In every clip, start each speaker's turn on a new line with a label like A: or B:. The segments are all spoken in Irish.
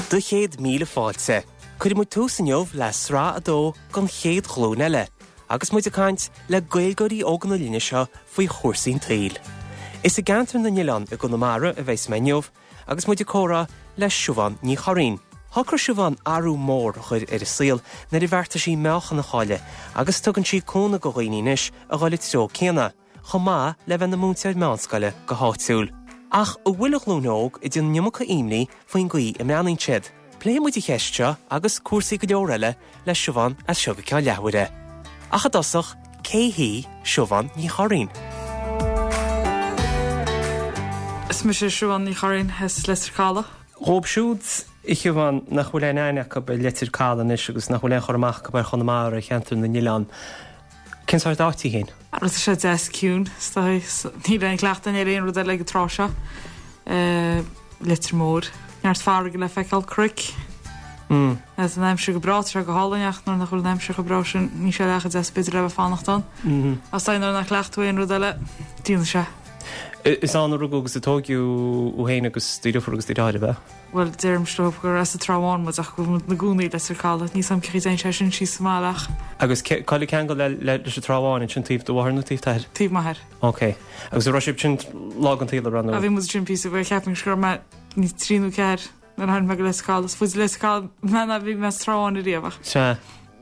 A: Do chéad míle fáilte. Cuirfidh muid tús inniu le sraith 2 den chéad ghlúin eile, agus muid ag caint le Gaeilgeoirí óga na linne seo faoi chúrsaí an tsaoil. Is i gceantar na nOileán i gConamara a bheas mé inniu agus muid ag comhrá le Siubhán Ní Churraoin. Shocraigh Siubhán athrú mór a chur ar a saol nuair a bheartaigh sí meáchan a chailleadh agus tugann sí cúnamh do dhaoine anois a dhul an treo céanna. chomh maith le bheith ina múinteoir meánscoile go háitiúil. Ach an bhfuil an ghlúin óg ag déanamh an iomarca imní faoin gcaoi a mbreathnaíonn siad? Pléifidh muid an cheist seo agus cúrsaí go leor eile le Siubhán as seo go ceann leathuaire. Ach i dtosach, cé hí Siubhán Ní Churraoin?
B: Is mise Siubhán Ní Churraoin as Leitir Caladh.
A: Dhóibh siúd, a Shiubhán, nach bhfuil aon aithne acu ar Leitir Caladh anois agus nach bhfuil aon chur amach acu ar Chonamara, ar cheantar na nOileán, Cén sórt áit í
B: féin? Tá sé deas ciúin, is dóigh. Níl aon chleachtadh ar aon rud eile ag an tráth seo. Leitir Móir. Neart farraige le feiceáil, cnoic. Tá an aimsir go breá, tá sé go hálainn ach nuair nach bhfuil an aimsir chomh breá sin, níl sé leath chomh deas b'fhéidir le bheith fanacht ann. Ach is dóigh nuair nach gcleacht tú aon rud eile, déanann sé.
A: Is ann a rugadh agus a tóigeadh thú féin agus do dheirfiúr agus do dheartháir, ab ea?
B: Bhuel, deirimse leo gur as an Trá Bháin muid ach go bhfuil muid 'na gcónaí i Leitir Caladh. Níl 's a'm cén chaoi a dtéann sé sin síos sa mbaile ach.
A: Agus cá bhfuil an ceangal leis an Trá Bháin ansin, taobh do mháthar nó taobh t'athar?
B: Taobh m'athar.
A: Ok. Agus an raibh sibh ansin lá den tsaol, an raibh nó?
B: Bhí muid ansin píosa, bhuel cheapfainn go raibh mé níos trí nó ceathair nuair a tháinig mé go Leitir Caladh. Is faide Leitir Caladh mé ná bhí mé sa Trá Bháin ariamh
A: ach. Sea.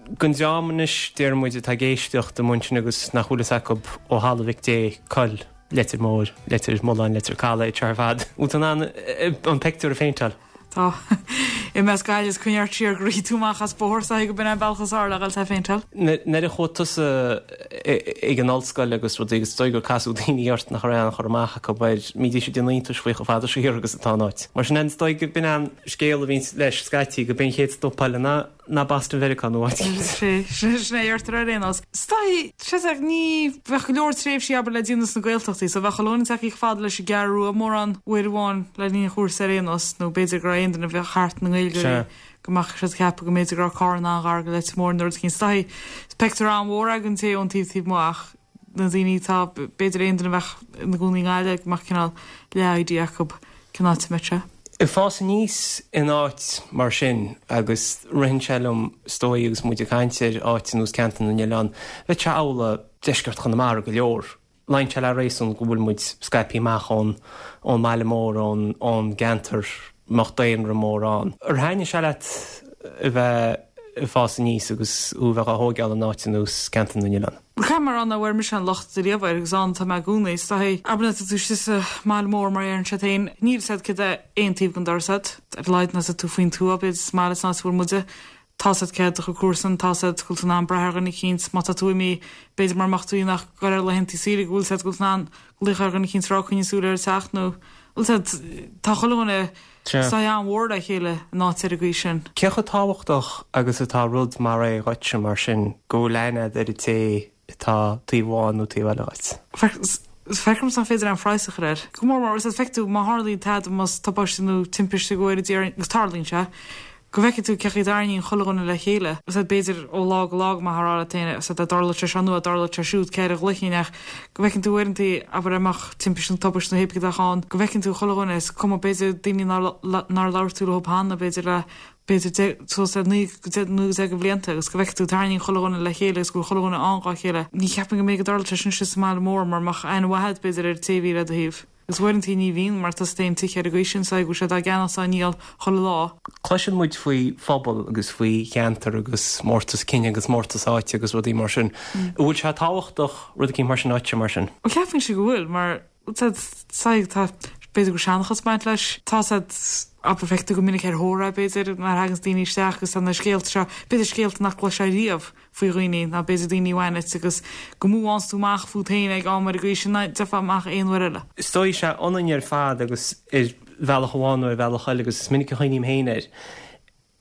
A: Don dream anois, déarfaidh muid, atá ag éisteacht amuigh ansin agus nach bhfuil fhios acu ó thalamh Mhic Dé cá bhfuil Leitir Móir, Leitir Mealláin, Leitir Caladh, iad seo ar fad. Bhfuil tú in ann an pictiúr a phéinteáil?
B: Tá. I measc Gaillimh is coinnigh ort siar go rithfidh tú amach as bóthar is dóigh go b'in é an bealach is fearr le dhul tá a phéinteáil.
A: Nuair a chuaigh tusa ag an ollscoil agus rudaí agus is dóigh gur casadh daoine ort nach raibh aon chur amach acu air, bhídís ag déanamh iontais faoi chomh fada siar agus atá an áit. Mar sin, is dóigh go b'in an scéal a bhíonns leis scaití, go b'é an chéad stop eile ná ná Boston Mheiriceá nó áit
B: éicint. Sin é a deirtear ar aon nós. Is dóigh, sea, ní bheadh go leor tréimhsí abair le déanamh sna Gaeltachtaí so bheadh chuile dhuine tagtha chomh fada leis an gCeathrú Rua mórán uair amháin le linn an chúrsa ar aon nós nó b'fhéidir go raibh aon duine a bheadh thart na nGaeilgeoirí go mbeadh siad ag ceapadh go mb'fhéidir go raibh Carna an-ghar go Leitir Móir nó rud éicint. Is dóigh, is pictiúr an-mhór é don té ón taobh taobh amuigh ach na daoine atá, b'fhéidir aon duine a bheadh ina gcónaí i nGaillimh go mbeadh cineál leath-idea acu cén áit a mbeadh sé.
A: Ag fás aníos in áit mar sin, agus ritheann sé liom, is dóigh, agus muid ag caint ar áit ar nós Ceantar na nOileán, bheadh sé amhlaidh deisceart Chonamara go leor. Luíonn sé le réasún go bhfuil muid scaipthe amach ón ón mbaile mór, ón ón gceantar a mbeadh daonra mór ann. Ar thaitnigh sé leat a bheith ag fás aníos agus thú a bheith á thóigeáil in áit ar nós Ceantar na nOileán?
B: Caithfidh mé a rá nach bhfuair mise aon locht ariamh air agus ann atá mé i gcónaí. Is dóigh, abair nuair atá tú istigh sa mbaile mór mar a deireann siad féin, níl 'fhios a'd céard é aon taobh den doras a'd. Ar a laghad nuair atá tú faoin tuath, b'fhéidir sa mbaile san áit a bhfuil muide, tá 'fhios a'd cé hiad do chuid comharsan, tá 'fhios a'd go bhfuil tú in ann brath ar dhuine eicínt má tá tú imithe, b'fhéidir mura mbeadh tú ach ag goil ar laethanta saoire go bhfuil 'fhios a'd go bhfuil tú in ann glaoch ar dhuine eicínt is rá coinnigh súil ar an teach nó bhfuil 'fhios a'd, tá chuile dhuine Saghas an-mhór le chéile in áit ar an gcaoi sin.
A: Cé chomh tábhachtach agus atá rud mar é dhuitse, mar sin, go bhfuil aithne agat ar an té atá taobh amháin nó taobh eile
B: dhuit? Feictear domsa nach féidir aon phraghas a chur air. Go mór mór, is feicfidh tú má tharlaíonn tada, más tubaiste nó timpiste go bhfóire Dia orainn, agus tarlaíonn sé, go bhfeicfidh tú cé chaoi a dtarraingíonn chuile dhuine le chéile. Is b'fhéidir ó lá go lá go mbeifeá ag rá leat féin, is dá dtarlódh sé seo nó dá dtarlódh sé siúd, cé air a ghlaofainn ach go bhfeiceann tú uaireanta, abair dá mbeadh timpiste nó tubaiste nó hé bith cad a bheadh ann, go bhfeiceann tú chuile dhuine, is cuma, b'fhéidir daoine nár labhair tú leo cheana, b'fhéidir le, b'fhéidir suas le 9 nó 10 de bhlianta agus go bhfeiceann tú tarraingíonn chuile dhuine le chéile agus go bhfuil chuile dhuine ann dhá chéile. Ní cheapaim go mbeidh go dtarlódh sé sin istigh sa mbaile mór mura mbeadh aithne mhaith agat b'fhéidir ar an té a bhí le do thaobh. Agus uaireanta ní bhíonn, mar tá sa t-aon tigh ar an gcaoi sin, so go bhfuil sé dá gceannach 's á ndíol chuile lá.
A: Cloiseann muid faoi phobal agus faoi cheantar agus mórtas cine agus mórtas áite agus rudaí mar sin. An bhfuil sé tábhachtach rud eicínt mar sin duitse mar sin?
B: Bhuel ceapaimse go bhfuil, mar tá, tá, b'fhéidir go bhfuil seanchas ag baint leis. Tá said, abair, feictear go minic ar thórraimh b'fhéidir, nuair a thaganns daoine isteach agus tá na scéalta seo, b'fhéidir scéalta nach gcloisfeá riamh. faoi dhaoine, ná b'fhéidir daoine a bhain duit agus go mbuanns tú amach fút féin ag am ar an gcaoi sin ná gheofá amach aon uair eile.
A: Is dóigh sé ionainn ar fad agus ar bhealach amháin nó ar bhealach eile agus is minic a chuimhním féin air,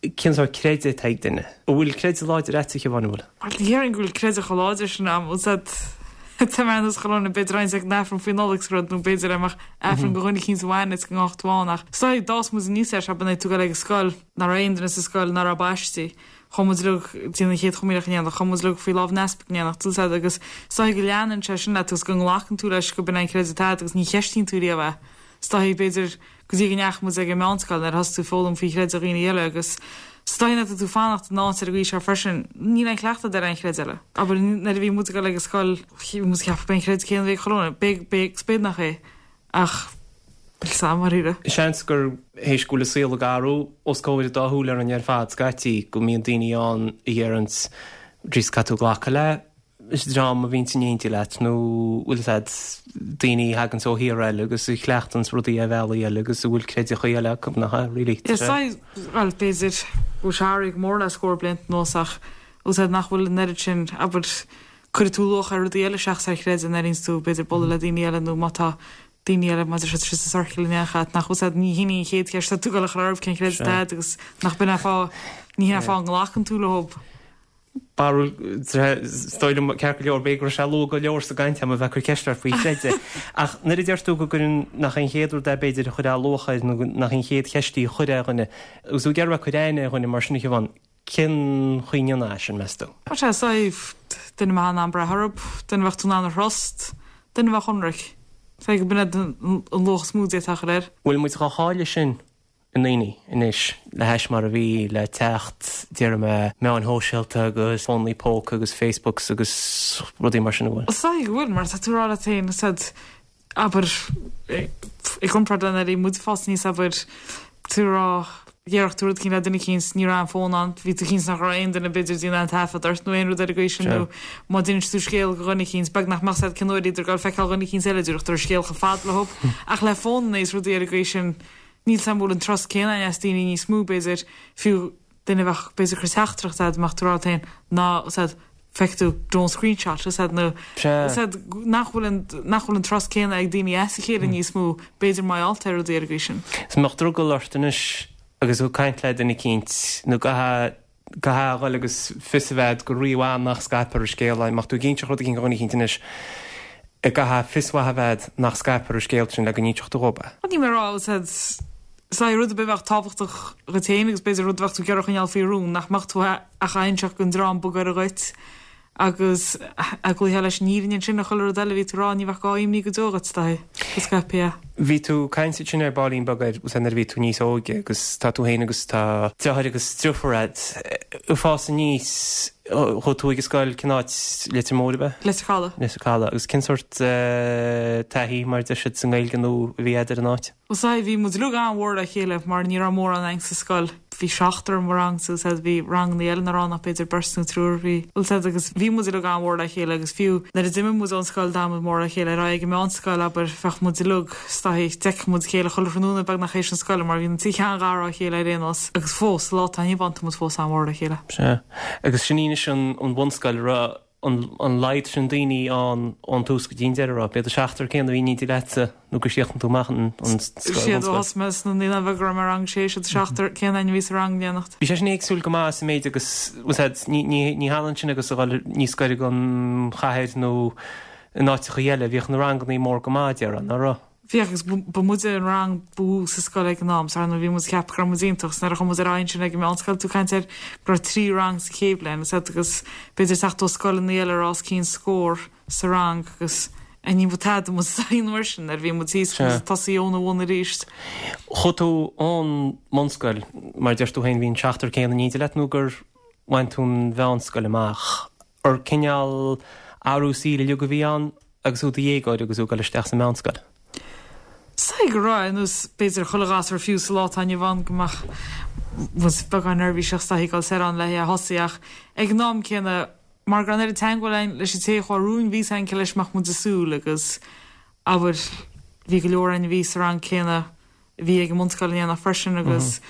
A: cén sórt creideamh atá ag duine? An bhfuil creideamh láidir agat, a Shiobhán, an
B: bhfuil? Bhuel, ní déarfainn go bhfuil creideamh chomh láidir sin a'm, bhfuil 's a'd, tá mé ar nós chuile dhuine, b'fhéidir roinnt ag an Aifreann faoi Nollaig 's rud nó b'fhéidir dá mbeadh Aifreann do dhuine eicínt a bhain duit go ngabhfadh tú ann ach is dóigh d'fhás muid aníos air seo, b'in é tú ag dul ag an scoil, nach raibh aon duine sa scoil nach raibh baistí. Chuaigh muid uilig ag déanamh an Chéad Chomaoineach in éineacht, chuaigh muid uilig faoi lámh an easpaig in éineacht, bhfuil 's a'd, agus is dóigh go leanann sé sin leat agus go nglacann tú leis go b'in é an creideamh atá agat agus ní cheistíonn tú riamh é. Is dóichí, b'fhéidir, go dtí go ndeachaigh muid ag an meánscoil nuair a thosaigh tú ag foghlaim faoi chreideamh dhaoine eile agus is dóichí nuair atá tú ag fanacht in áit ar an gcaoi seo freisin, níl aon chleachtadh agat ar aon chreideamh eile. Abair, nuair a bhí muid ag dul ag an scoil, bhí muid ag ceapadh b'é an creideamh céanna a bhí ag chuile dhuine, b'é, b'é, agus b'fhéidir nach é, ach níl 's a'm, dáiríre.
A: Seans gur théis go bhfuil an saol ag athrú os comhair an dá shúil orainn ar fad scaití, go mbíonn daoine ann a dheireanns, Jeez, caithfidh tú glacadh le dream a bhíonns in éindí leat nó bhfuil 'fhios a'd, daoine a thaganns ó thíortha eile agus a chleachtanns rudaí ar bhealaí eile agus a bhfuil creideachaí eile acu, nach ea, really?
B: Is dóigh, bhuel, b'fhéidir go bhfuil sé athraithe go mór le scór blianta anuas ach bhfuil 'fhios a'd nach bhfuil an oiread sin, abair, cuirfidh tú luach ar rudaí eile seachas ar chreideamh nuair a bhíonns tú, b'fhéidir, bualadh le daoine eile nó má tá daoine eile, má tá siad sa ciorcal in éineacht leat, nach bhfuil 'fhios a'd, ní hin í an chéad cheist atá tú ag dul a chur orthu cén creideamh atá a'd agus nach b'in an fáth, ní hin an fáth a nglacann tú leo.
A: Barúil, Is dóigh liom, ceart go leor, b'fhéidir go raibh sé luath go leor sa gcaint agam a bheith ag cur ceist ort faoi chreideamh. Ach nuair a deir tú go gcuireann, nach é an chéad rud é b'fhéidir a chuirfeá luach air nó nach í an chéad cheist í a chuirfeá ar dhuine, agus tú ag iarraidh a bheith ag cur aithne ar dhuine mar sin a Shiobhán, cén chaoi a ndéanfá é sin, meas tú?
B: Tá sé safe, duine a mbeifeá in ann brath orthu, duine a bheadh tú in ann a thrust, duine a bheadh ionraic. Is dóigh go b'in an luach is mó a d'fhéadfá a chur air.
A: Bhfuil muid chomh háille sin i ndaoine anois le hais mar a bhí le teacht, déarfaidh mé, meáin shóisialta agus fónaí póca agus Facebooks agus rudaí mar sin, an
B: bhfuil? Is dóigh go bhfuil, mar tá tú ag rá leat féin, is ea, abair, i gcomparáid le nuair a bhí muid ag fás aníos, abair, tú ag rá, dhéarfadh tú rud eicínt le duine eicínt, ní raibh an fón ann, bhí tú cinnte nach raibh aon duine b'fhéidir ag déanamh aon taifead ort nó aon rud ar an gcaoi sin nó má d'inis tú scéal go dhuine eicínt, beag nach mbeadh 's a'd cén uair a bhíodar ag dul feiceáil dhuine eicínt eile, déarfadh tú an scéal chomh fada leo. Ach le fónanna is rudaí ar an gcaoi sin, Níl 's a'm an bhfuil an trust céanna againn as daoine níos mó, b'fhéidir, fiú duine a bheadh, b'fhéidir, ag cur teachtaireacht a'd, mbeadh tú ag rá leat féin, ná, 's a'd, feicfidh tú, don't screenshot, 's a'd, nó, 's a'd, nach bhfuil an, nach bhfuil an trust céanna ag daoine as a chéile níos mó, b'fhéidir mar gheall ar rudaí ar an gcaoi sin.
A: Is mbeadh drogall ort anois agus tú ag caint le duine eicínt, nó go Caithfidh a dhul agus fios a bheith agat go rímhaith nach scaipfear an scéal. Dá mbeadh tú ag inseacht rud eicínt do dhuine eicínt anois, caithfidh fios mhaith a bheith agat nach scaipfear an scéal sin le go n-inseoidh tú dhób é.
B: Níl mé ag rá, is é rud ar bith a bheadh tábhachtach dhuit féin agus b'fhéidir rud a bheadh tú ag iarraidh a choinneáil faoi rún, nach mbeadh tú ach á inseacht don dream ba ghaire dhuit. Agus a gcloífeá leis an fhírinne ansin ar chuile rud eile a bhí tú a rá, ní bheadh gá imní go deo dhuit, dóigh, go scaipfí
A: é. Bhí tú ag caint ansin ar baillín beag ar nuair a bhí tú níos óige agus tá tú féin agus tá deartháir agus driofúr a'd. Ag fás aníos, chuaigh tú ag an scoil, cén áit, Leitir Móir ab
B: ea? Leitir Caladh.
A: Leitir Caladh. Agus cén sórt taithí, mar a deir siad sa nGaeilge, nó a bhí a'd ar an áit?
B: Bhuel sea, bhí muid uilig an-mhór le chéile mar ní raibh mórán againn sa scoil. Bhí seachtar i mo rangsa, sea, bhí ranganna eile nach raibh ann ach b'fhéidir beirt nó triúr. Bhí, bhuel sea, agus bhí muid uilig an-mhór le chéile agus fiú nuair a d'imigh muid ón scoil d'fhan muid mór le chéile. Ar aghaidh ag an meánscoil, abair, bheadh muid uilig, is dóichí, d'fheicfeadh muid a chéile chuile thráthnóna beagnach théis na scoile mar bhí muid sean-ghar dá chéile ar aon nós agus fós, sa lá atá inniu ann, tá muid fós an-mhór le chéile.
A: Sea. Agus sin í anois an bhunscoil, raibh an laghad sin daoine ann ón tús go dtí an deireadh, raibh? B'iad an seachtar céanna a bhí in éindí leatsa nó gur chríochnaigh tú amach an
B: scoil, Siad ó thosaigh mé sna naíonáin bheaga go raibh mé i rang a sé, siad an seachtar céanna againn a bhí sa rang in éineacht.
A: Bhí sé sin éagsúil go maith sa méid agus, bhfuil 's a'd, ní hionann sin agus a dhul níos gaire don chathair nó in áiteachaí eile, bhíodh na rangannaí mór go maith, déarfá, ná raibh?
B: Bhíodh agus ba muide an rang ba mhó sa scoil ag an am, so ar ndóigh bhí muid ag ceapadh go raibh muid iontach, 's nuair a chuaigh muid ar aghaidh ansin ag an meánscoil, tú ag caint ar go raibh 3 rang sa chéad bhliain, is agus b'fhéidir teacht ó scoileanna eile a raibh os cionn scór sa rang agus ní ba tada muid sa aon uair sin nuair a bhí muid thíos agus muid ag tosaí óna bhun arís.
A: Chuaigh tú ón mbunscoil, mar a deir tú féin, bhí an seachtar céanna in éindí leat nó gur bhain tú an mheánscoil amach? Ar cineál athrú saoil uilig a bhí ann agus tú i do dhéagóir agus tú ag dul isteach sa meánscoil?
B: Is dóigh go raibh, ar nós b'fhéidir chuile ghasúr fiú sa lá atá inniu ann go mbeadh muid beagán neirbhíseach is dóichí ag dul soir ann le é a thosaí ach ag an am céanna mar go raibh an oiread teagmháil againn leis an té a chuaigh romhainn bhí 's againn cé leis a mbeadh muid ag súil agus abair bhí go leor againn a bhí sa rang céanna a bhí ag an mbunscoil in éineacht freisin agus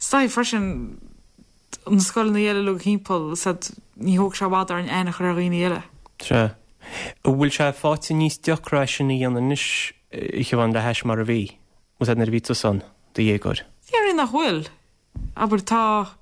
B: is dóichí freisin na scoileanna eile uilig thimpeall, is ea, ní thóg sé i bhfad orainn aithne a chur ar dhaoine eile.
A: Sea. An bhfuil sé faighte níos deacra é sin a dhéanamh anois, a Shiobhán, le hais mar a bhí, is ea, nuair a bhí tusa ann, do dhéagóir?
B: Déarfainn nach bhfuil. Abair, tá,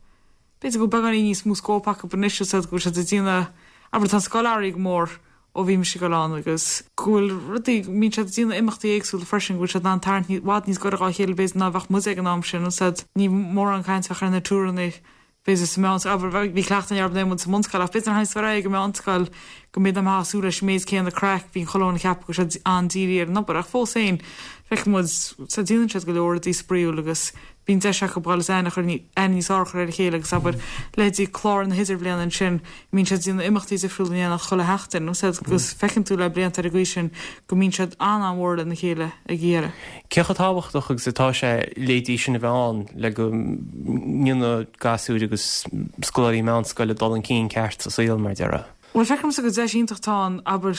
B: b'fhéidir go bhfuil beagáinín níos mó scóip acu anois, is ea, go bhfuil siad ag déanamh, abair, tá an scoil athraithe go mór ó bhí mise ag dul ann agus go bhfuil rudaí, go mbíonn siad ag déanamh imeachtaí éagsúla freisin, go bhfuil siad in ann tarraingt i bhfad níos gaire dhá chéile b'fhéidir ná a bheadh muide ag an am sin, is ea, ní mórán caint a bheadh ar na túranna. B'fhéidir sa mheánscoil, abair, bhí cleachtadh againn orthu nuair a bhí muid sa mbunscoil ach b'fhéidir nuair a théanns tú ar aghaidh ag an meánscoil go mb'fhéidir nach mbeifeá ag súil leis an méid céanna craic, bíonn chuile dhuine ag ceapadh go bhfuil siad an-dírithe ar an obair ach fós féin feiceann muid, sea, déanann siad go leor rudaí spraíúil agus bíonn deis acu dhul is aithne a chur, aithne níos fearr a chur ar a chéile agus abair, leithéidí clár na hidirbhliana ansin, mbíonn siad ag déanamh imeachtaí difriúla in éineacht chuile sheachtain, agus feiceann tú le blianta ar an gcaoi sin go mbíonn siad an-an-mhór lena chéile ag a dheireadh.
A: Cé chomh tábhachtach agus atá sé leithéidí sin a bheith ann le go ndéanfaidh gasúir agus scoláirí meánscoile dul chun cinn ceart sa saol, mar a déarfá?
B: Bhuel, feicimse gur deis iontach atá ann, abair,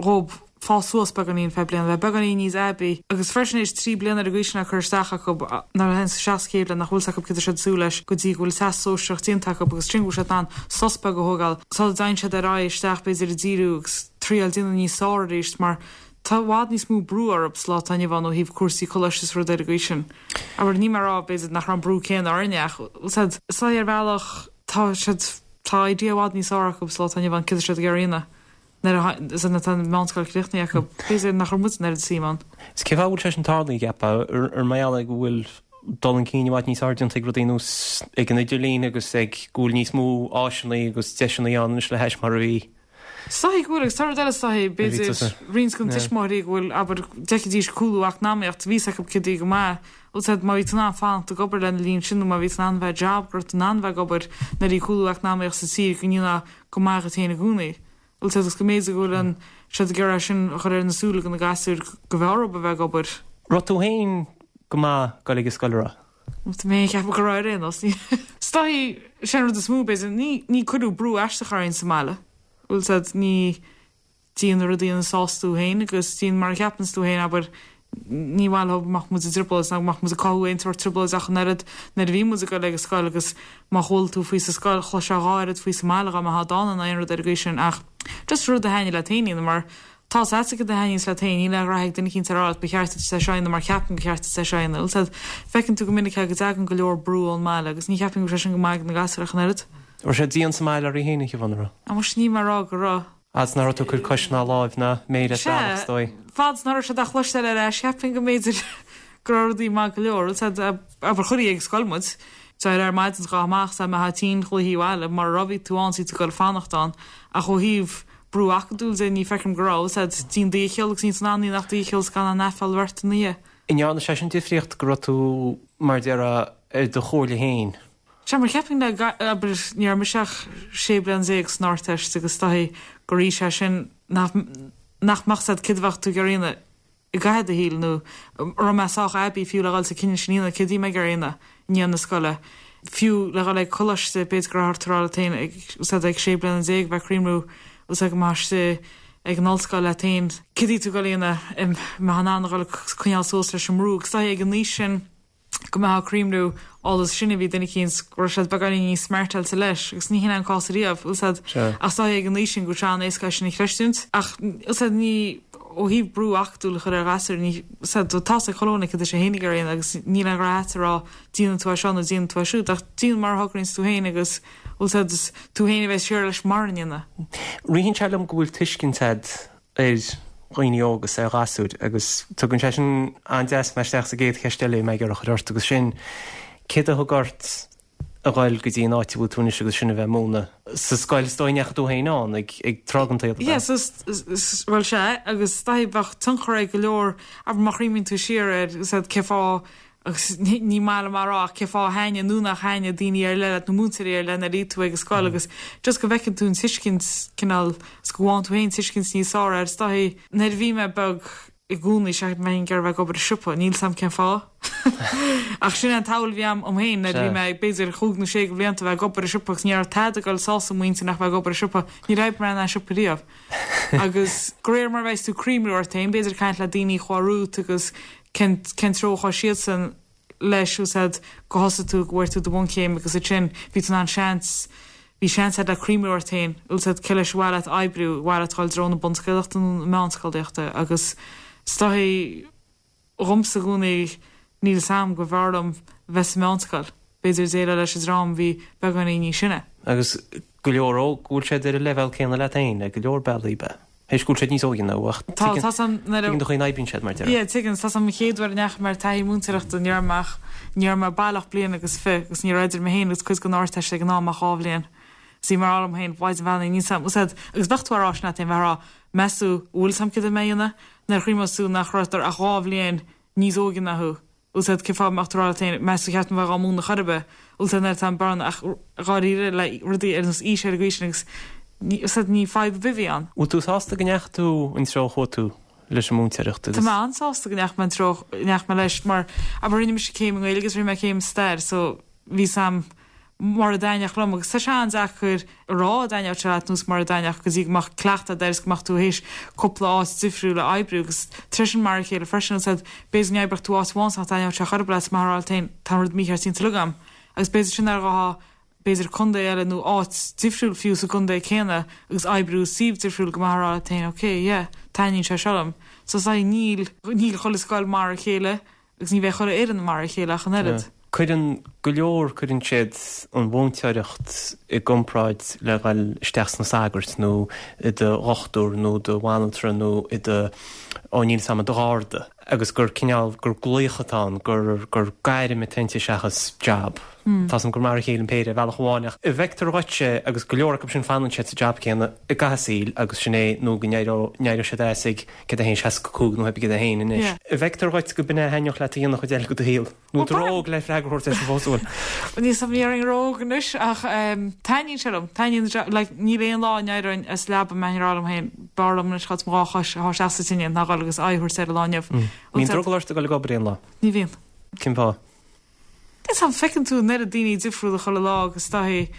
B: dhób fás suas beagáinín feadh bliana, bheith beagáinín níos aibí, agus freisin théis 3 bliana ar an gcaoi sin á cur isteach acu, nuair a théann isteach sa chéad bhliain nach bhfuil 's acu céard tá siad ag súil leis go dtí go bhfuil teastas sóisearach déanta acu agus ansin go bhfuil siad in ann sos beag a thógáil sula dtéann siad ar aghaidh isteach b'fhéidir ag díriú agus triail déanamh níos fearr arís mar tá i bhfad níos mó brú orthu sa lá atá inniu ann ó thaobh cúrsaí coláiste is rud ar an gcaoi sin. Abair, níl mé ag rá b'fhéidir nach raibh an brú céanna orainne ach is dóigh ar bhealach tá siad tá idea i bhfad níos fearr acu sa lá atá inniu ann céard tá siad ag iarraidh a dhéanamh. Nuair a tá an mheánscoil críochnaithe acu, b'fhéidir nach raibh muid an oiread suim
A: ann. Is cén fáth a bhfuil sé sin tarlaithe, an gceapfá? Ar mar gheall go bhfuil dul chun cinn i bhfad níos fearr déanta ag rudaí ar nós ag an idirlíon agus ag go bhfuil níos mó áiseanna agus deiseanna ann anois le hais mar a bhí?
B: Is dóigh go bhfuil, agus tá rud eile is dóigh, b'fhéidir, roinnt de na tuismitheoirí go bhfuil, abair, d'fheicfidís cúlú eacnamaíocht, bhí 's acu céard a bhí go maith, bhfuil 's agat, má bhí tú in ann fanacht ag obair lena linn sin nó má bhí tú in ann bheith job, go raibh tú in ann bheith ag obair nuair a bhí cúlú eacnamaíocht sa tír go ndéanfá go maith dhuit féin i gcónaí. Bhfuil 's agat, agus go mb'fhéidir go bhfuil an, siad ag iarraidh sin a chur ar na súile do na gasúir go bhfearr dhób a bheith ag obair.
A: Raibh tú féin go maith ag dul ag an scoil, an raibh?
B: Tá mé ag ceapadh go raibh ar aon nós. Is dóigh, sin an rud is mó, b'fhéidir, ní, ní cuireadh brú aisteach orainn sa mbaile. Bhfuil 's agat, ní, déan na rudaí ina sásta tú féin agus déan mar a cheapanns tú féin, abair, ní mhaith leo go mbeadh muid i dtrioblóid ná go mbeadh muid ag cothú aon tsórt trioblóid ach an oiread nuair a bhí muid ag dul ag an scoil agus má chuala tú faoi sa scoil, chloisfeá dhá oiread faoi sa mbaile dhá mbeifeá dána ná aon rud ar an gcaoi sin ach just rud a thaitnigh leat féin a dhéanamh mar tá 's agat céard a thaitníonns leat féin, níl aon ghraithe ag duine eicínt a rá leat ba cheart duit é seo a dhéanamh mar ceapaim gur cheart duit é seo a dhéanamh. Bhfuil 's agat, feiceann tú go minic é go dtagann go leor brú ón mbaile agus ní cheapaim go bhfuil sé sin go maith ag na gasúir ach an oiread.
A: Raibh sé dian sa mbaile oraibh féin, a Shiobhán, an raibh?
B: Á muise níl mé ag rá go raibh.
A: Fhad is nach raibh tú ag cur cos ná láimh ná méir as bealach, is
B: Sea, dóigh. fad is nach raibh siad á chloisteáil ar ais, cheapfainn go mb'fhéidir go raibh rudaí maith go leor. Bhfuil 's agat, abair, chuirtí ag scoil muid, d'éireofá ar maidin is ghabhfá amach, is dá mbeifeá tinn ghlaofaí abhaile, mura raibh bhí tú ann is bhí tú ag dul fanacht ann. Ach ó thaobh brú acadúil de, ní feicim go raibh, bhfuil 's agat, déan do dhícheall agus níl tú in ann ach do dhícheall is gan aon aiféala a bheith ort ina dhiaidh.
A: An ndearna sé sin difríocht go raibh tú, mar a déarfá, ar do chomhairle féin?
B: Sea, mar cheapfainn le, abair, ní raibh mise ach 16 bliain san Ardteist agus is dóichí gur aois é sin nach, nach mbeadh 's agat céard a bheadh tú ag iarraidh a dhéanamh i gcaitheamh do shaoil nó an raibh mé sách aibí fiú le dhul sa cinneadh sin a dhéanamh, céard a bhí mé ag iarraidh a dhéanamh i ndiaidh na scoile. Fiú le dhul ag coláiste, b'fhéidir go raibh ort a rá leat féin ag, 's agat, ag 16 bliana bheith ag cuimhniú, 's agat, go mbeifeá istigh ag an ollscoil leat féin, céard a bhí tú ag dul a dhéanamh, an mbeifeá in ann a dhul ag coinneáil suas leis an mbrú agus is dóichí ag an aois sin, go mbeifeá ag cuimhniú eolas sin a bhí duine eicínt go raibh siad beagáinín níos smartáilte leis agus ní hin é an cás ariamh, bhfuil 's agat, ach is dóichí ag an aois sin go bhfuil sé an-éasca é sin a chreistiúint ach bhfuil 's agat ní ó thaobh brú acadúil a chur ar ghasúir ní bhfuil 's agat tá's ag chuile dhuine céard tá sé féin ag iarraidh a dhéanamh agus níl aon ghraithe agat a rá déanfaidh tú é seo nó déanfaidh tú é siúd ach déan mar a thograíonns tú féin agus bhfuil 's agat is tú féin a bheas siar leis mara ndéana.
A: Ritheann sé liom go bhfuil tuiscint agat ar dhaoine óga is ar ghasúir agus tugann sé sin an-deas mé isteach sa gcéad cheist eile a bhí mé ag iarraidh a chur ort agus sin céard a thug ort a ghoil go dtí an áit a bhfuil tú anois agus sin a bheith ag múineadh sa scoil is dóigh a ndeachaigh tú féin ann ag ag tráth den tsaol ab ea?
B: Yes, is, bhuel sea agus is dóichí bheadh tionchar ag go leor, abair má chuimhníonn tú siar air, is ea cén fáth Agus ní maith liom a rá ach cén fáth a thaitnigh nó nach thaitnigh daoine ar leith leat nó múinteoirí ar leith nuair a bhí tú ag an scoil agus just go bhfeiceann tú an tuiscint cineál is go bhfaigheann tú féin tuiscint níos fearr air. Is dóichí nuair a bhí mé beag i gcónaí cheap mé ag iarraidh a bheith ag obair i siopa, níl 's a'm cén fáth. Ach sin é an tsamhail a bhí a'm dom féin nuair a bhí mé b'fhéidir chúig nó sé de bhlianta a bheith ag obair i siopa agus ní raibh tada ag dul sásamh muintir ach bheith ag obair i siopa. Níor oibrigh mé in aon siopa riamh. Agus de réir mar a bheas tú ag cuimhniú ort féin, b'fhéidir ag caint le daoine a chuaigh romhat agus cén cén treo a chuaigh siadsan leis bhfuil 's a'd go thosaigh tú go bhfuair tú do bhunchéim agus ansin bhí tú in ann seans bhí seans a'd le cuimhniú ort féin bhfuil 's a'd cé leis ar mhaith leat oibriú ar mhaith leat dul i dtreo na bunscolaíochta nó na meánscolaíochta agus is dóichí dhomsa i gcónaí níl 's a'm go mb'fhearr liom bheith sa meánscoil b'fhéidir déileáil leis an dream a bhí beagáinín níos sine.
A: Agus go leor óg go bhfuil siad ar an leibhéal céanna leat féin ar go leor bealaí, ab ea? Théis go bhfuil siad níos óige ná thú ach tuigeann tuigeann do chaoi a n-oibríonn siad mar
B: a déarfá. Yeah, tuigeann. Tá 's a'm an chéad uair a ndeachaigh mé ar taithí múinteoireachta ní raibh mé ach ní raibh mé baileach bliain agus fi agus ní raibh idir mé féin agus cuid den Ardteist ag an am ach 2 bhliain. Is bhí mé ag rá liom féin, Mhaighdean Bheannaithe, níl 's a'm, úsáid, agus bheadh tú á rá sin leat féin, bheith á rá, meas tú, an bhfuil 's a'm céard a mbeidh a dhéanamh? Nuair a chuimhneos tú nach raibh ach 2 bhliain níos óige ná thú. Úsáid cén fáth a mbeadh tú ag rá leat féin, meas tú cheart dom bheith dhá múineadh chor ar bith, úsáid nuair atá an bearna ach dháiríre le rudaí ar nós aois ar an gcaoi sin agus ní, úsáid ní fadhb ar bith a bhí ann.
A: Bhfuil tú sásta go ndeachaigh tú an treo a chuaigh tú leis an múinteoireacht
B: agus. Tá mé an-sásta go ndeachaigh mé an treo a ndeachaigh mé leis mar abair rinne mise céim i nGaeilge agus rinne mé céim i stair so bhí 's a'm mar a dtaitneodh liom agus tá sé an-deacair a rá an dtaitneodh sé leat nó is mar a dtaitneodh go dtí go mbeadh cleachtadh agat air is go mbeadh tú théis cúpla áit difriúil a oibriú agus tar éis sin mar a chéile freisin úsáid b'fhéidir go n-oibreodh tú áit amháin is nach dtaitneodh sé chor ar bith leat is mbeifeá ag rá leat féin tá an rud mícheart déanta uilig agam agus b'fhéidir sin ar ghabhfá b'fhéidir contae eile nó áit difriúil fiú sa gcontae céanna agus oibriú i suíomh difriúil go mbeifeá ag rá leat féin ok yeah taitníonn sé seo liom so is níl níl chuile scoil mar a chéile Agus ní bheidh chuile fhoireann mar a chéile ach an oiread.
A: Cuireann go leor, cuireann siad an mhúinteoireacht i gcomparáid le dhul isteach sna sagairt nó i do dhochtúir nó do bhanaltra nó i do, ó níl 'fhios a'm, i do gharda agus gur cineál, gur glaoch atá ann, gur, gur gairm atá inti seachas jab. Tá 's a'm gur mar a chéile an péire ar bhealach amháin ach an bhfeictear dhuitse agus go leor acu sin fanann siad sa jab céanna i gcaitheamh a saoil agus sin é nó go n-éireoidh, n-éireoidh siad as ag céard é féin, 65 nó pé céard é féin anois. An bhfeictear dhuit go b'in é a thaitneodh leat a dhéanamh chuid eile de do shaol? Nó tú ró-óg le freagra a thabhairt air sin fós, an bhfuil?
B: Níl 's a'm, ní déarfainn ró-óg anois ach taitníonn sé liom. Taitníonn, like, níl aon lá a n-éireoinn as leaba a mbeinn ag rá liom féin, b'fhearr liom anois dhul ar mo dhá chois a shá isteach sa tine ná dhul agus aghaidh a thabhairt ar an lá inniu.
A: Mbíonn drogall ort a dhul ag obair aon lá?
B: Ní bhíonn.
A: Cén fáth?
B: Níl 's a'm, feiceann tú an oiread daoine difriúla chuile lá agus daithí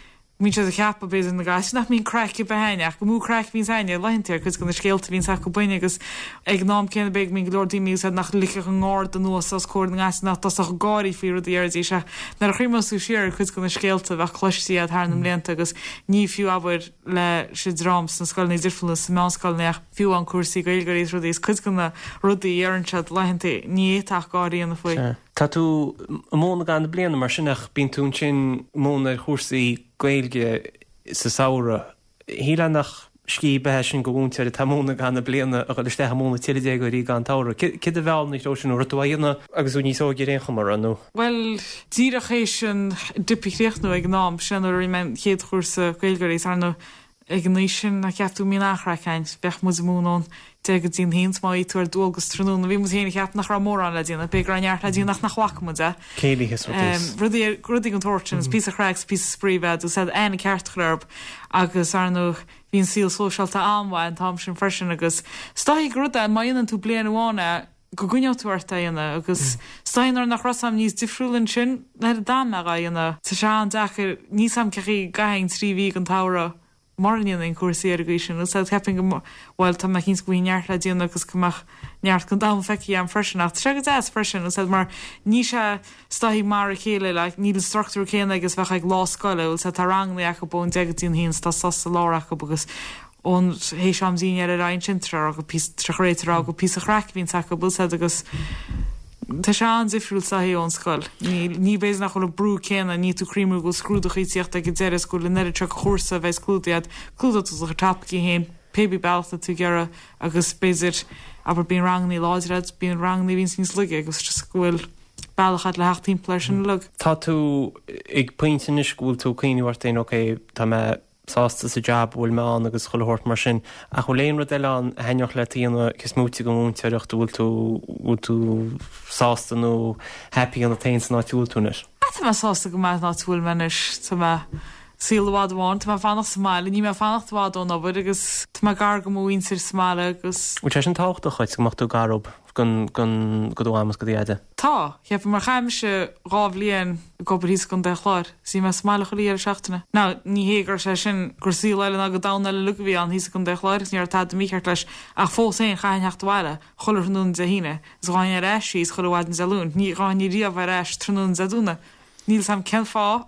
B: Bíonn siad ag ceapadh, b'fhéidir, na gasúir nach mbíonn craic ar bith a'ainn, ach gur mó craic a bhíonns a'ainne, laethanta ar cuid de na scéalta a bhíonns acu againne agus ag an am céanna b'fhéidir go mbíonn go leor daoine úsáid nach ligfeadh a ngarda anuas os comhair na ngasúr nach dtosódh ag gáirí faoi rudaí a déarfaidís ach nuair a chuimhneos tú siar ar cuid de na scéalta a bheadh cloiste a'd thar na mblianta agus ní fiú abair leis an dream sna scoileanna difriúla sna meánscoileanna ach fiú amháin cúrsaí Gaeilgeoirí is rudaí is cuid de na rudaí a deireann siad laethanta ní fhéadfá ach gáirí a dhéanamh faoi.
A: Tá tú ag múineadh i gcaitheamh na bliana mar sin ach bíonn tú ansin ag múineadh ar chúrsaí Gaeilge sa samhradh. Shílfeá nach scíth ar bith é sin do mhúinteoir atá ag múineadh i gcaitheamh na bliana a dhul isteach ag múineadh tuilleadh déagóirí i gcaitheamh an tsamhraidh. Céard a mheall ina threo sin nó raibh tú á dhéanamh agus tú níos óige ar aon chuma, raibh nó?
B: Bhuel, díreach théis an dip a chríochnú ag an am, sin nuair a rinne mé an chéad chúrsa Gaeilgeoirí is ar ndóigh Ag an aois sin, nach gceap tú go mbíonn an-chraic a'inn. Bheadh muid ag múineadh ón deich go dtí an haon, 's má bhí tú ar dualgas tráthnóna, bhí muid féin ag ceapadh nach raibh mórán le déanamh, b'fhéidir go raibh neart le déanamh ach nach bhfaca muid é.
A: Céilithe is rudaí is.
B: Rudaí, rudaí den tsórt sin, is píosa craic 's píosa spraoi a bheith a'd, aithne ceart a chur orthu agus, ar ndóigh, bhí an saol sóisialta an-mhaith an t-am sin freisin agus is dóichí gur rud é, má dhéanann tú bliain amháin é, go gcoinneoidh tú ort é a dhéanamh agus is dóichí nuair nach raibh 's a'm níos difriúla ansin nuair a d'fhan mé dhá dhéanamh. Tá sé an-deacair, níl 's a'm cén chaoi go gcaithfinn 3 mhí den tsamhradh mura ndéanfainn cúrsaí ar an gcaoi sin. Úsáid cheapfainn go, bhuel tá mé cinnte go bhfuil neart le déanamh agus go mbeadh neart den domhan feicthe a'm freisin ach tá sé go deas freisin úsáid mar níl sé is dóichí mar a chéile like níl an struchtúr céanna agus a bheadh ag lá scoile úsáid tá ranganna acu ón deich go dtí an haon 's tá sos sa lár acu agus ón théis am dinnéir ar aghaidh ansin tar rá go píosa tar réiteach rá go píosa chraic a bhíonns acu úsáid agus tá sé an-difriúil is dóichí ón scoil. Ní ní b'fhéidir nach bhfuil an brú céanna, níl tú ag cuimhniú go bhfuil scrúdachaí ag tíocht ag an deireadh is go bhfuil an oiread seo de chúrsa a bheas clúdaithe agat, clúdóidh tú do chuid topaicí féin pé bí bealach atá tú ag iarraidh agus b'fhéidir abair bíonn rangannaí láidir agat, bíonn rangannaí a bhíonns níos laige agus just go bhfuil bealach agat le theacht timpeall air sin uilig.
A: Tá tú ag pointe anois go bhfuil tú ag cuimhniú ort féin ok tá mé sásta sa jab a bhfuil mé ann agus chuile shórt mar sin. Ach bhfuil aon rud eile ann a thaitneodh leat a dhéanamh cé is móite den mhúinteoireacht, an bhfuil tú, bhfuil tú sásta nó happy ionat féin san áit a bhfuil tú anois?
B: Ah tá mé sásta go maith san áit a bhfuil mé anois. Tá mé saol i bhfad amháin, tá mé ag fanacht sa mbaile, níl mé ag fanacht i bhfad ón obair agus tá mé gar do mo mhuintir sa mbaile agus.
A: Bhfuil sé sin tábhachtach dhuit go mbeadh tú gar dóibh don, don, do do mham is do do
B: dhaid? Tá, cheapfainn mar chaith mise 2 bhliain ag obair thíos i gContae an Chláir is bhí mé sa mbaile chuile dheireadh seachtaine. Now, ní hé go raibh sé sin, gur saol eile ná gur domhan eile uilig a bhí ann thíos i gContae an Chláir agus ní raibh tada mícheart leis ach fós féin chaithfinn theacht abhaile chuile thráthnóna Dé hAoine is ghabhfainn ar ais síos chuile mhaidin Dé Luain. Ní ghabhfainn riamh ar ais tráthnóna Dé Domhnaigh. Níl 'fhios a'm cén fáth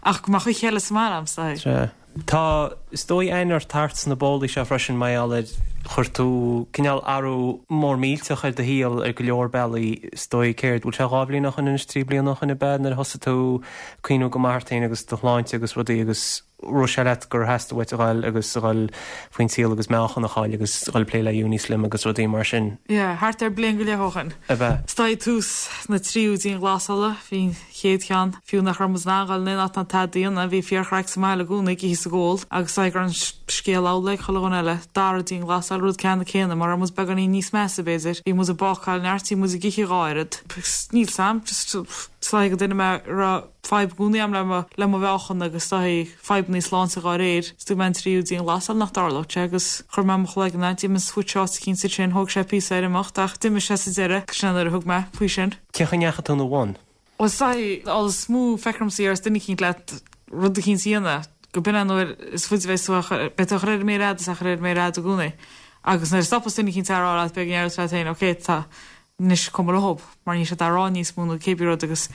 B: ach go mbeadh oíche eile sa mbaile a'm, is dóigh.
A: Sea. Tá, is dóigh, aithne ort thart sna bólaí seo freisin mar gheall ar chuir tú cineál athrú mór millteach ar do shaol ar go leor bealaí, is dóigh. Céard, bhfuil sé 2 bhliain ó shoin anois, 3 bliana ó shoin ab ea nuair a thosaigh tú ag cuimhniú go maith ort féin agus do shláinte agus rudaí agus. Raibh sé leat gur theastaigh uait a ghoil agus a ghoil faoin saol agus meáchan a chaill agus a ghoil ag plé le Unislim agus rudaí mar sin.
B: Yeah, thart ar bliain go leith ó shin.
A: Ab ea?
B: Is dóigh tús na tríú dianghlasála, bhí an chéad cheann, fiú nach raibh muid in ann ghoil in aon áit ná tada a dhéanamh, bhí fíorchraic sa mbaile i gcónaí, ag ithe is ag ól, agus is dóigh go raibh an scéal amhlaidh ag chuile dhuine eile. Dara dianghlasáil, rud ceannann céanna, mar raibh muid beagáinín níos measa, b'fhéidir. Bhí muid ag bácáil neart, bhí muid ag ithe dhá oiread. Níl 's a'm, just, is dóigh gur duine mé a raibh. fadhb i gcónaí a'm le mo le mo mheáchan agus is dóigh fadhbannaí sláinte dhá réir. Is dúirt mé an tríú dianghlasáil nach dtarlódh sé agus chuir mé mo chloigeann ann, d'imigh an switch áit eicínt ansin, thóg sé píosa air imeacht ach d'imigh sé sa deireadh, sin é nuair a thug mé faoi sin.
A: Cén chaoi a ndeachaigh tú ina bhun?
B: Bhuel is dóigh an is mó feictear domsa a déarfas duine eicínt leat rud eicínt a dhéanamh go b'in é an uair is faide a bheas tú á chur, beidh tú á chur ar an méar fhada is á chur ar an méar fhada i gcónaí agus nuair a stopas duine eicínt á rá leat beidh go ndéarfas leat féin ok tá anois cuma leob mar níl siad á rá níos mó nó cébí rud agus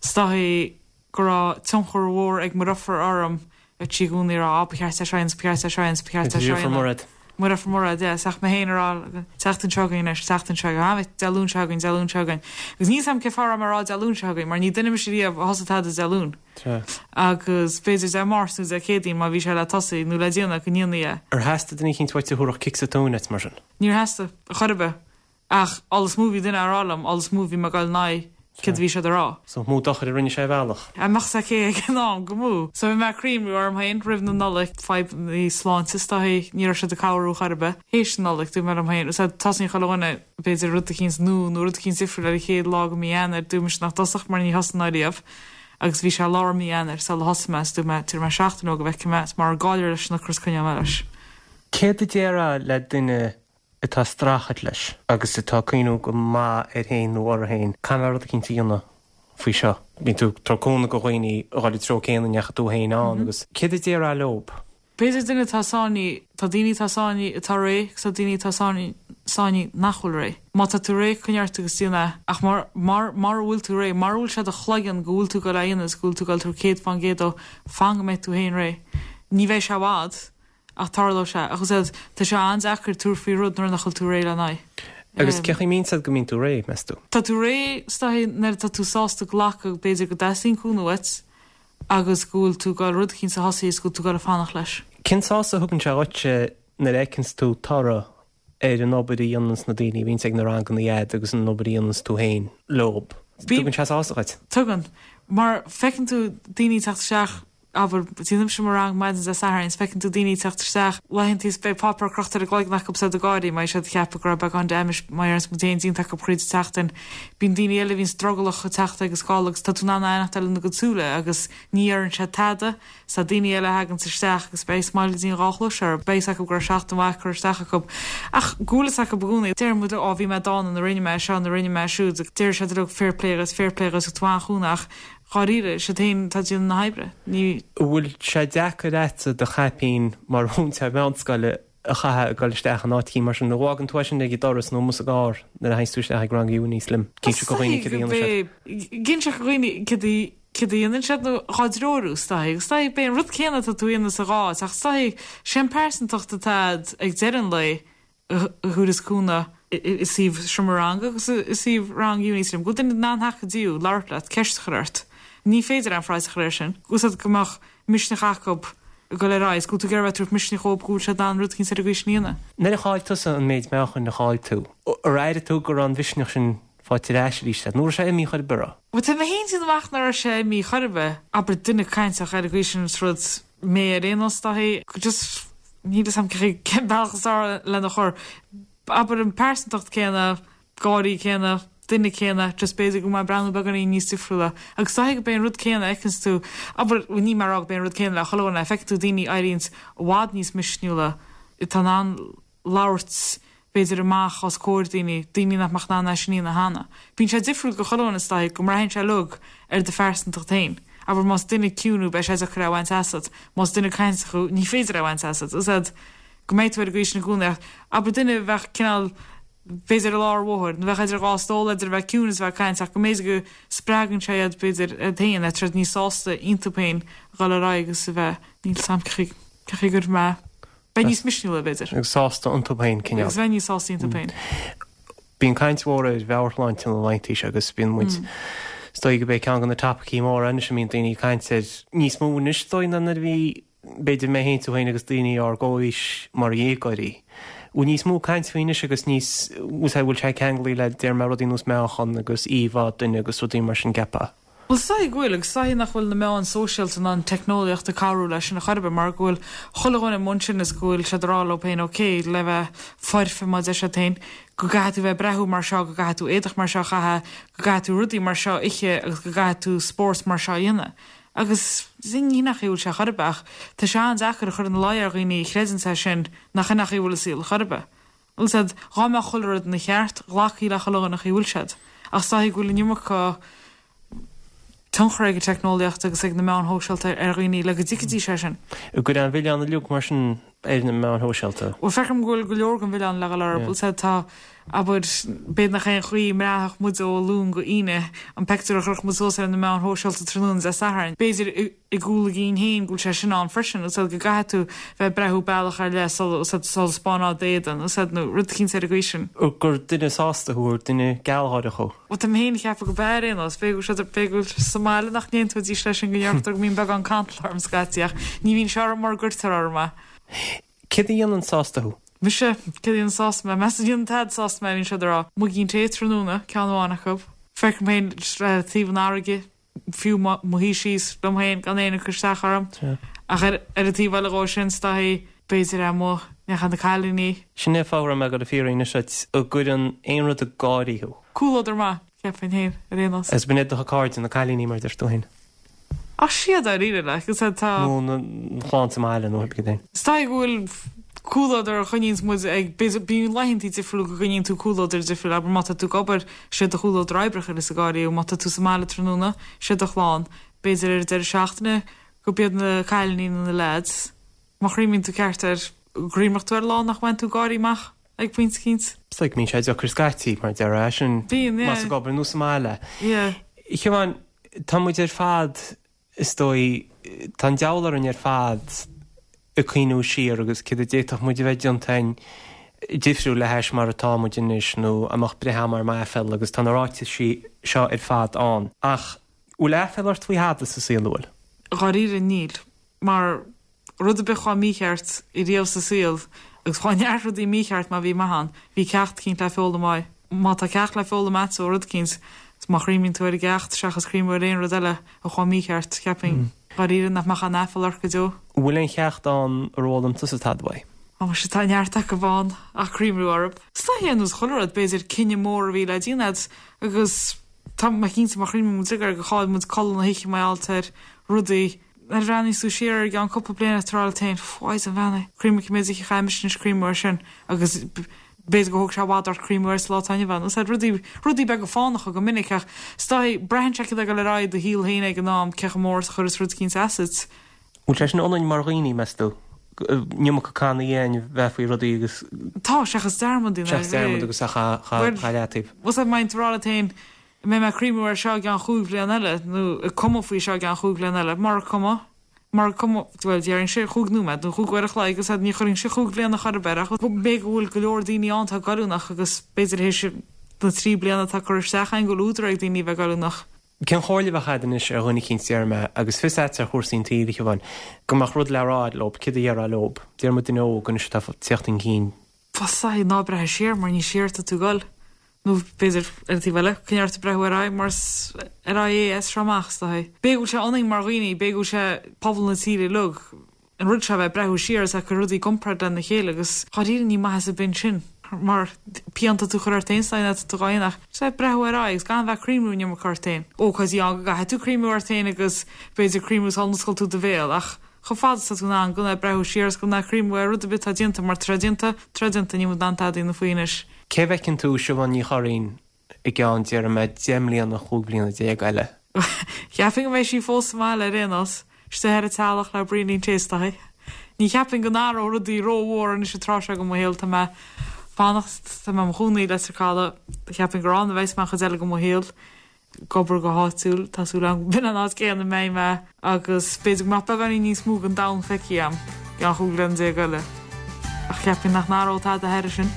B: is dóigh go raibh tionchar mhór ag mo dheirfiúr orm a bhí i gcónaí ag rá á ba cheart é seo a dhéanamh ba cheart é seo a dhéanamh ba cheart é seo a dhéanamh.
A: Mairéad.
B: Mo dheirfiúr Mairéad, yeah, is ach mé féin ag rá tseachtain seo chugainn anois, tseachtain seo chugainn, Dé Luain seo chugainn, Dé Luain seo chugainn. Agus níl 's a'm cén fáth a raibh mé ag rá Dé Luain seo chugainn mar ní duine mise riamh a thosaigh tada Dé Luain. Agus b'fhéidir Dé Máirt nó Dé Céadaoin má bhí sé le tosaí nó le déanamh go ndéanfaí é.
A: Ar theastaigh duine eicínt uait a thabharfadh cic sa tóin duit mar sin?
B: Níor theastaigh, chor ar bith. Ach an is mó bhí duine á rá liom, an is mó bhí mé ag dul in aghaidh céard a bhí siad a rá.
A: So mó dochair a rinne sé ar bhealach.
B: Dá mbeadh 's aici ag an am, go mó. So bhí mé ag cuimhniú orm féin roimh na Nollaig, fadhbannaí sláinte is dóigh, ní raibh siad ag cabhrú chor ar bith. Théis na Nollaig, dúirt mé liom féin, so tosaíonn chuile dhuine, b'fhéidir rud eicínt nua nó rud eicínt difriúil ar an chéad lá de mhí Eanáir, dúirt mise nach dtosódh mar ní thosaím ariamh. Agus bhí sé lár mí Eanáir sula thosaigh mé, is dúirt mé, tabharfaidh mé seachtain dhó go bhfeicfidh mé, is mura gcaillir leis an ocras coinneoidh mé leis.
A: Céard a déarfá le duine atá ag streachailt leis agus atá ag cuimhniú go maith air féin nó uirthi féin, caithfidh mé rud eicínt a dhéanamh faoi seo. Bíonn tú ag tabhairt cúnamh do dhaoine a dhul an treo céanna a ndeachaigh tú féin ann agus céard a déarfá leob?
B: B'fhéidir duine atá sáinnithe, tá daoine atá sáinnithe atá réidh agus tá daoine atá sáinnithe nach bhfuil réidh. Má tá tú réidh, coinnigh ort agus déan é. Ach mar, mar, mara bhfuil tú réidh, mara bhfuil sé i do chloigeann go bhfuil tú ag dul é a dhéanamh agus go bhfuil tú ag dul tabhairt 100% dó, fan go mbeidh tú féin réidh. Ní bheidh sé i bhfad. Ach tarlóidh sé. Ach is ea, tá sé an-deacair tabhairt faoi rud nuair nach bhfuil tú réidh lena aghaidh.
A: Agus cén chaoi a mbíonn a fhios agat go mbíonn tú réidh, meas tú?
B: Tá tú réidh, is dóigh, nuair atá tú sásta glacadh, b'fhéidir, go dteastaíonn cúnamh uait agus go bhfuil tú ag dul rud eicínt a thosaí is go bhfuil tú ag dul ag fanacht leis.
A: Cén sásamh a thugann sé dhuitse nuair a fheiceanns tú toradh ar an obair a dhéananns na daoine a bhíonns ag na ranganna a'd agus an obair a dhéananns tú féin leob? Tugann sé sásamh dhuit?
B: Tugann. Mar feiceann tú daoine ag teacht isteach Abair, déanaimse mo rang maidin Dé Sathairn is feiceann tú daoine ag teacht isteach laethanta is beidh páipéar crochta ar a gcloigeann acu is iad ag gáirí mar siad ag ceapadh go raibh beagán damage mar a déarfas muid féin déanta acu thríd an tseachtain. Bíonn daoine eile a bhíonns drogallach ag teacht agus ag gabháil agus tá tú in ann aithneachtáil ina gcuid súile agus ní dheireann siad tada. Is tá daoine eile a thaganns isteach agus beidh smiley go dtí an dhá chluais orthu. Beidh fhios acu go raibh seachtain mhaith curtha isteach acu. Ach go bhfuil fhios acu i gcónaí. Deireann muid leo, á bhí mé dána nuair a rinne mé seo nuair a rinne mé siúd. Deir siad leo fair play dhuit, fair play dhuit, tú an-chúnamh ach Dháiríre, is iad féin atá ag déanamh na hoibre. Ní.
A: An bhfuil sé deacair a'dsa do chaipín mar mhúinteoir meánscoile a chaitheamh ag dul isteach in áit eicínt mar sin? Nó an bhfágann tú é sin ag an doras nó amuigh sa gcarr nuair a théanns tú isteach ag rang Unislim? Ag inse do dhaoine céard a dhéanann siad?
B: Ag inse do dhaoine céard a céard a dhéanann siad nó dhá dtreorú is dóigh. Is dóigh b'é an rud céanna atá tú a dhéanamh sa dhá áit ach is dóigh sé an pearsantacht atá a'd ag deireadh an lae a thabharfas cúnamh i suíomh seomra ranga agus i suíomh rang Unislim, go bhfuil duine in ann theacht go dtí thú, labhairt leat, ceist a chur ort. Ní féidir aon phraghas a chur air sin. Úsáid go mbeadh misneach acu ag dul ar aghaidh, is go bhfuil tú ag iarraidh a bheith ag tabhairt misneach dhóibh go bhfuil siad in ann rud eicínt ar an gcaoi sin a dhéanamh.
A: Nuair a chaill tusa an méid meáchain a chaill tú, ar airigh tú go raibh an mhisneach sin faighte ar ais arís agat, nó raibh sé imithe chor ar bith?
B: Bhuel, tá mé féin ag déanamh amach nach raibh sé imithe chor ar bith. Abair duine cainteach ar an gcaoi sin is rud mé ar aon nós, dóigh, just níl fhios a'm cén bealach is fearr lena chur. Abair an pearsantacht céanna, gáirí céanna, duine céanna, just b'fhéidir go bhfuil mé ag breathnú beagáinín níos difriúla. Agus is dóigh go b'é an rud céanna a fheiceanns tú, abair, bhuel níl mé ag rá go b'é an rud céanna le chuile dhuine, feiceann tú daoine a éiríonns i bhfad níos misniúla, atá in ann labhairt, b'fhéidir, amach os comhair daoine, daoine nach mbeadh in ann é sin a dhéanamh cheana. Bíonn sé difriúil do chuile dhuine is dóigh go mbraitheann sé uilig ar do phearsantacht féin. Abair más duine ciúin thú beidh sé deacair é a bhaint asat, más duine cainteach thú ní féidir é a bhaint asat. Is ea go mbeidh tú ar an gcaoi sin i gcónaí ach abair duine a bheadh cineál b'fhéidir i lár an bhóthair nó bheadh idir dhá stól idir a bheith ciúin is a bheith ag caint ach go mb'fhéidir go spreagann sé iad b'fhéidir iad féin, tá siad níos sásta iontu féin a dhul ar aghaidh agus a bheith níl 'fhios a'm cén chaoi go raibh mé Bheith níos misniúla, b'fhéidir.
A: Agus sásta iontu féin,
B: cineál. Agus bheith níos sásta iontu féin.
A: Bíonn caint mhór ar mheabhairshláinte na laethanta seo agus bíonn muid, is dóigh go b'é ceann de na topaicí móra anois a mbíonn daoine ag caint air níos mó anois, is dóigh, ná nuair a bhí. b'fhéidir mé féin, tú féin agus daoine ár gcomhaois mar dhéagóirí. Bhfuil níos mó caint faoi anois agus níos, bhfuil sé ceanglaithe le, déarfaidh mé, rudaí nós meáchan agus íomhá duine agus rudaí mar sin, gceapfá?
B: Bhuel, is dóigh go bhfuil, agus is dóigh nach bhfuil na meáin sóisialta ná an teicneolaíocht ag cabhrú leis sin a chor ar bith, mar go bhfuil chuile dhuine i mbun sin is go bhfuil siad ag rá leo féin, ok, le bheith foirfe mar a deir siad féin, go gcaithfidh tú bheith ag breathú mar seo, go gcaithfidh tú éadach mar seo a chaitheamh, go gcaithfidh tú rudaí mar seo a ithe agus go gcaithfidh tú spórt mar seo a dhéanamh. Agus ní hin an chaoi a bhfuil sé a chor ar bith, ach tá sé an-deacair a chur ina luí ar dhaoine a chreideanns é sin nach in an chaoi a bhfuil an saol a chor ar bith. Bhfuil a fhios a'd, dhá mbeadh chuile rud ina cheart, ghlacfaí le chuile dhuine an chaoi a bhfuil siad. Ach is dóichí go bhfuil an iomarca tionchar ag an teicneolaíocht agus ag na meáin shóisialta ar dhaoine le go dtuigfidís é sin.
A: An gcuireann an milleán uilig mar sin ar na meáin shóisialta?
B: Bhuel, feicim go bhfuil go leor den mhilleán le dhul orthu. Bhfuil a fhios a'd, tá, abair, b'fhéidir nach é an chaoi a mbraithfeadh muid ó Luan go hAoine, an peictiúr a chuirfeadh muid suas ar na meáin shóisialta tráthnóna Dé Sathairn. B'fhéidir. i gcúl a gcinn féin go bhfuil sé sin ann freisin, bhfuil a fhios a'd go gcaithfidh tú bheith ag breathú bealach ar leith sula, bhfuil a fhios a'd, sula spáineá d'éadan, bhfuil a fhios a'd, nó rud eicínt ar an gcaoi sin.
A: gur duine sásta thú, gur duine gealgháireach thú.
B: Bhuel, tá mé féin ag ceapadh go b'ea ar aon nós, b'fhéidir go bhfuil siad, b'fhéidir go bhfuil sa mbaile nach n-aontóidís leis sin go ndeirtear go mbíonn beagán cantal orm scaití ach ní bhíonn sé orm mura gcuirtear orm é.
A: Céard a dhéanann sásta thú?
B: Mise, céard a dhéanann sásta mé? Meas tú ní dhéanann tada sásta mé a bhíonn siad ag rá. Muigín tae tráthnóna, ceann amháin acu. Feicim féin taobh an fharraige. fiú mo shuí síos liom féin gan éinne ag cur isteach orm. Ach ar an taobh eile dhó sin, is dóichí, b'fhéidir amuigh, neacha na cailíní.
A: Sin é fáth a raibh mé ag dul a fiafraí anois duit, an gcuireann aon rud ag gáirí thú?
B: Comhluadar maith, cheapfainn féin, ar aon nós.
A: Agus b'in iad do chairde, na cailíní mar a deir tú féin.
B: Ach siad dáiríre, like, is tá.
A: Nó na clann sa mbaile nó cibé.
B: Is dóigh go bhfuil comhluadar a choinníonns muid ag, b'fhéidir, bíonn laethantaí difriúla go gcoinníonn tú comhluadar difriúil, abair má tá tú ag obair, sé do chomhluadar oibre a chuireas ag gáirí thú, má tá tú sa mbaile tráthnóna, sé do chlann, b'fhéidir ar an deireadh seachtaine go b'iad na cailíní nó na leaids. Má chuimhníonn tú ceart air, cuimhneoidh tú ar lá nach mbain tú gáirí amach ag pointe eicínt.
A: Is dóigh go mbíonn sé deacair scaití, mar a déarfá, é sin,
B: Bíonn, yeah.
A: más ag obair nó sa mbaile.
B: Yeah.
A: A Shiobháin, tá muid ar fad, is dóigh, tá an deabhal orainn ar fad ag cuimhniú siar agus céard a d'fhéadfadh muid a bheith déanta againn difriúil le hais mar atá muid anois nó an mbeadh breith agam orm aiféala agus tá na ráitisí seo ar fad ann. Ach bhfuil aiféala ort faoi thada sa saol, an bhfuil?
B: Dháiríre níl. Mar rud ar bith a chuaigh mícheart riamh sa saol, agus chuaigh neart rudaí mícheart má bhí maith ann, bhí ceacht eicínt le foghlaim uaidh. Má tá ceacht le foghlaim agat ó rud eicínt, is má chuimhníonn tú ar an gceacht seachas cuimhniú ar aon rud eile a chuaigh mícheart, cheapfainn, dháiríre, nach mbeadh aon aiféala ort go deo.
A: An bhfuil aon cheacht ann ar fhoghlaim tusa tada uaidh?
B: Ó, muise, tá neart acu ann ach cuimhniú orthu. Is dóiche ar nós chuile rud, b'fhéidir cinneadh mór a bhí le déanamh agat agus tá mé cinnte má chuimhníonn muid air gur chaill muid codladh na hoíche mar gheall ar rudaí, Nuair a bhreathnaíos tú siar air i gceann cúpla bliain tá tú ag rá leat féin, 'Mhaighdean bheannaithe, cuimhnigh cé mhéad oíche a chaith mise anois ag cuimhniú air sin agus b'fhéidir gur thóg sé i bhfad ort cuimhniú air sa lá atá inniu ann. Is rudaí, rudaí beaga fánacha go minic ach is dóichí, braitheann sé céard atá ag dul ar aghaidh i do shaol féin ag an am, cé chomh mór is a chuireas rud eicínt asat.
A: Bhfuil sé sin ionainn mar dhaoine, meas tú? An iomarca cannaí againn bheith faoi rudaí agus.
B: Tá, seachas dearmad a dhéanamh.
A: Seachas dearmad agus a chur leataobh.
B: Bhuel, má bhíonn tú ag rá leat féin, An mbeidh mé ag cuimhniú air seo i gceann chúig bhliain eile, nó ag cumadh faoi seo i gceann chúig bhliain eile? Mura cuma, mura cuma, bhuel, déarfainnse chúig nóiméad nó chúig uair a chloig agus ní chuirfinnse chúig bhliana chor ar bith air ach b'fhéidir go bhfuil go leor daoine ann atá goilliúnach agus b'fhéidir théis na dtrí bliana atá curtha isteach againn go bhfuil údar ag daoine a bheith goilliúnach.
A: Cén chomhairle a bheadh agat anois ar dhuine eicínt, déarfaidh mé, agus fios agat ar chúrsaí an tsaoil, a Shiobháin, go mbeadh rud le rá agat leob, céard a dhéarfá leob? Déarfaidh muid duine óg anois atá ag tíocht chun cinn.
B: Bhuel, ná breathnaigh siar mar ní siar atá tú ag dul. Nó b'fhéidir, ar an taobh eile, coinnigh ort ag breathnú ar aghaidh mar is ar aghaidh é as seo amach, is dóichí. B'fhéidir go bhfuil sé ionainn mar dhaoine, b'fhéidir go bhfuil sé pobal na tíre uilig, an rud seo a bheith ag breathnú siar is ag cur rudaí i gcomparáid lena chéile agus dháiríre ní maitheas ar bith ansin mar pian atá tú a chur ort féin is dóigh atá tú dhá dhéanamh ach just a bheith ag breathnú ar aghaidh agus gan bheith ag cuimhniú an iomarca ort féin. Ócáidí ann go gcaithfidh tú cuimhniú ort féin agus b'fhéidir cuimhniú sula n-osclaíonn tú do bhéal ach chomh fada is atá tú in ann gan bheith ag breathnú siar is gan bheith ag cuimhniú ar rud ar bith atá déanta mar tá sé déanta, tá sé déanta, níl muid in ann tada a dhéanamh faoi anois.
A: Cé a bhfeiceann tú Siobhán Ní Churraoin i gceann, déarfaidh mé, 10 mbliana, 15 bliana eile?
B: Cheapfainn go mbeidh sí fós sa mbaile ar aon nós, istigh ar an teallach le braoinín tae is dóichí. Ní cheapfainn go n-athródh rudaí rómhór anois an tráth seo de mo shaol, tá mé fanacht, tá mé i mo chónaí i Leitir Caladh, cheapfainn gur ann a bheas mé an chuid eile de mo shaol. ag obair go háitiúil, tá súil agam go b'in an áit céanna a mbeidh mé agus b'fhéidir go mbeadh beagáinín níos mó den domhan feicthe agam i gceann 15 bliana eile. Ach cheapfainn nach n-athródh tada thairis sin.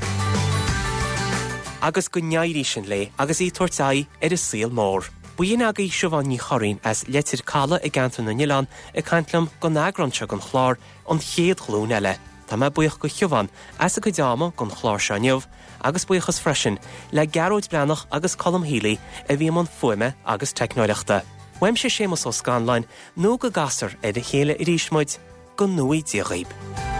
A: Agus go n-éirí sin léi agus í ag tabhairt aghaidh ar an saol mór. B'in agaibh Siobhán Ní Churraoin as Leitir Caladh i gCeantar na nOileán ag caint liom don eagrán seo den chlár An Chéad Ghlúin Eile. Tá mé buíoch go Shiobhán as a cuid ama don chlár seo inniu agus buíochas freisin le Gearóid Breathnach agus Colm Healy a bhí i mbun fuaime agus teicneoireachta. Uaimse Séamus Ó Scanláin, nó go gcasfar ar a chéile arís muid, go ngnóthaí Dia dhaoib.